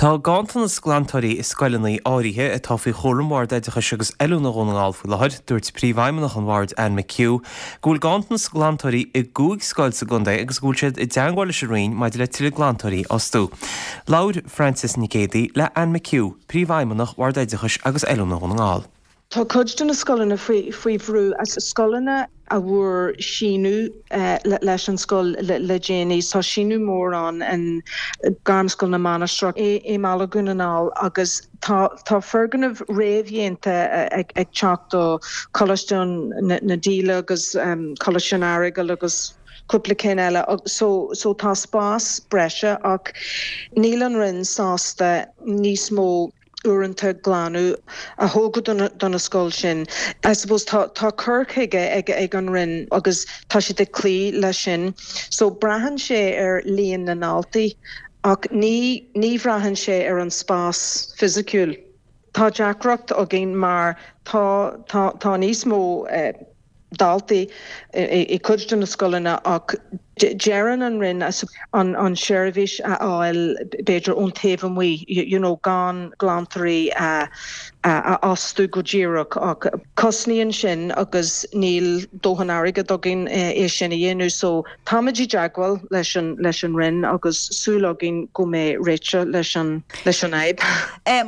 Tá ganntanas glantóirí i scoileanna áirithe atá faoi chúram Bhord Oideachais agus Oiliúna Dhún na nGall faoi láthair. Dúirt Príomhfheidhmeannach an Bhoird, Anne McHugh, go bhfuil ganntanas glantóirí i gcúig scoil sa gcontae agus go bhfuil siad i dteangmháil leis an Roinn maidir le tuilleadh glantóirí a fhostú. Labhair Frances Nic Géadaigh le Anne McHugh, Príomhfheidhmeannach Bhord Oideachais agus Oiliúna Dhún na nGall. Tá cuid de na scoileanna faoi bhrú, scoileanna a bhfuair síneadh leis an scoil le déanaí. Tá síneadh mór ann in Gairmscoil na Mainistreach i mBaile Dhún na nGall agus tá tá foirgnimh réamhdhéanta ag teacht do Choláiste na Díle agus Coláiste an Earagail agus cúpla cinn eile. So so tá spás breise ach níl an Roinn sásta níos mó uaireanta glanadh a thógáil do na scoil sin. I suppose tá tá cur chuige ag ag an Roinn agus tá siad ag cloí leis sin. So braitheann sé ar líon na ndaltaí ach ní ní bhraitheann sé ar an spás fisiciúil. Tá deacracht againn mar tá tá tá níos mó daltaí i gcuid de na scoileanna ach deireann an Roinn an seirbhís a fháil b'fhéidir ón taobh amuigh, you know gan glantóirí a fhostú go díreach ach cosnaíonn sin agus níl dóthain airgead againn é sin a dhéanamh so táimid i dteagmháil leis an leis an Roinn agus súil againn go mbeidh réiteach leis an leis an fhadhb.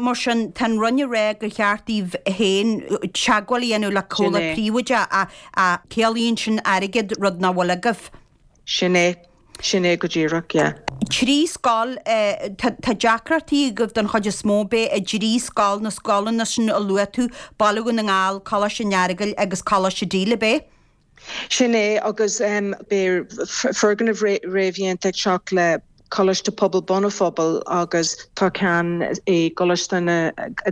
Mar sin, tá an Roinn ag rá gur cheart daoibh féin teagmháil a dhéanamh le comhlacht príobháideach ach ciallaíonn sin airgead, rud nach bhfuil agaibh. Sin é. Sin é go díreach, yeah. Trí scoil, tá deacrachtaí agaibh don chuid is mó, ab ea, i dtrí scoil, na scoileanna sin a luaigh tú, Baile Dhún na nGall, Coláiste an Earagail agus Coláiste Díle, ab ea? Sin é, agus beidh foirgneamh réamhdhéanta ag teacht le Coláiste Pobail Bun an Phobail agus tá ceann i gColáiste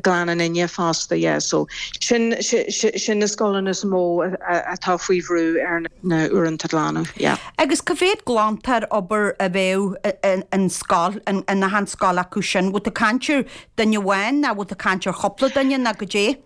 Ghleann an Fhine fosta, yeah. So sin sin na scoileanna is mó atá faoi bhrú ar na uaireanta glanadh, yeah. Agus cá mhéad glantóir obair a bheadh in scoil, in achan scoil acu sin? Bhfuil tú ag caint ar duine amháin nó bhfuil tú ag caint ar chúpla duine nó goidé?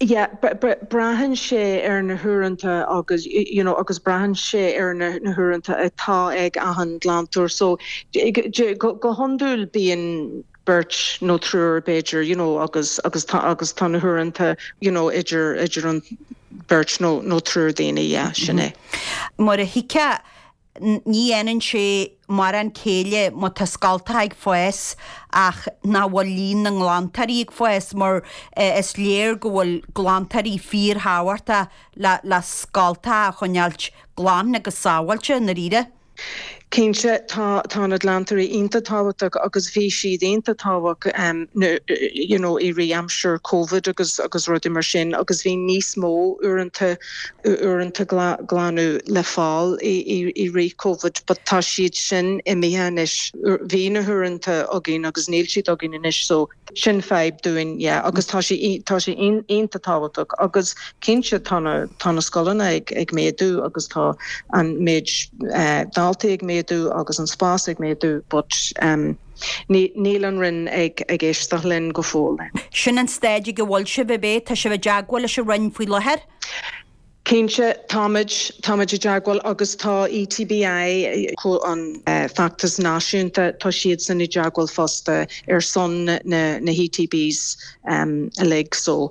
Yeah, braitheann sé ar na huaireanta agus, you know, agus braitheann sé ar na huaireanta atá ag achan glantóir. So, go hiondúil bíonn beirt nó triúr b'fhéidir, you know, agus, agus tá, agus tá na huaireanta, you know, idir, idir an beirt nó, nó triúr daoine, yeah, sin é. Mar a thuigfeá, Ní dhéanann sé mórán céille má tá scoltacha ag fás ach nach bhfuil líon na nglantóirí ag fás mar is léir go bhfuil glantóirí fíorthábhachtach le scoltacha a choinneáilt glan agus sábháilte i ndáiríre. Cinnte, tá tá na glantóirí iontach tábhachtach agus bhí siad iontach tábhachtach you know i rith aimsir Covid agus agus rudaí mar sin agus bhí níos mó uaireanta uaireanta glanadh le fáil i rith Covid but tá siad sin imithe anois. Bhí na huaireanta againn agus níl siad againn anois so sin fadhb dúinn yeah agus tá sé tá sé iontach tábhachtach agus cinnte tá na tá na scoileanna ag ag méadú agus tá an méid daltaí ag méadú agus an spás ag méadú but níl an Roinn ag ag éisteacht linn go fóill. Sin an staid ag a bhfuil sibh, ab é? Tá sibh i dteagmháil leis an Roinn faoi láthair? Cinnte, táimid, táimid i dteagmháil agus tá ETBI, an feachtas náisiúnta, tá siadsan i dteagmháil fosta ar son na na ETBs uilig. So,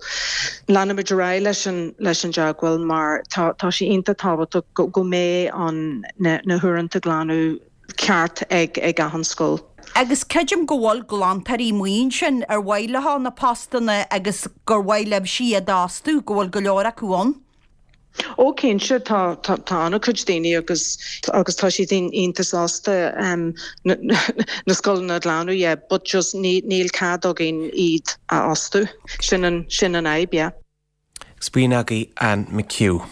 leanfaimid ar aghaidh leis an leis an dteagmháil mar tá tá sé iontach tábhachtach go go mbeidh an na na huaireanta glanadh ceart ag ag achan scoil. Agus creidim go bhfuil glantóirí amuigh ansin ar mhaith leo na postanna agus gur mhaith libhse iad a fhostú, go bhfuil go leor acu ann. Ó cinnte, tá tá tá an-chuid daoine agus agus tá siad iontach sásta na na scoileanna a ghlanadh, yeah, but just ní níl cead againn iad a fhostú. Sin an sin an fhadhb, yeah. Agus b'in agaibh Anne McHugh.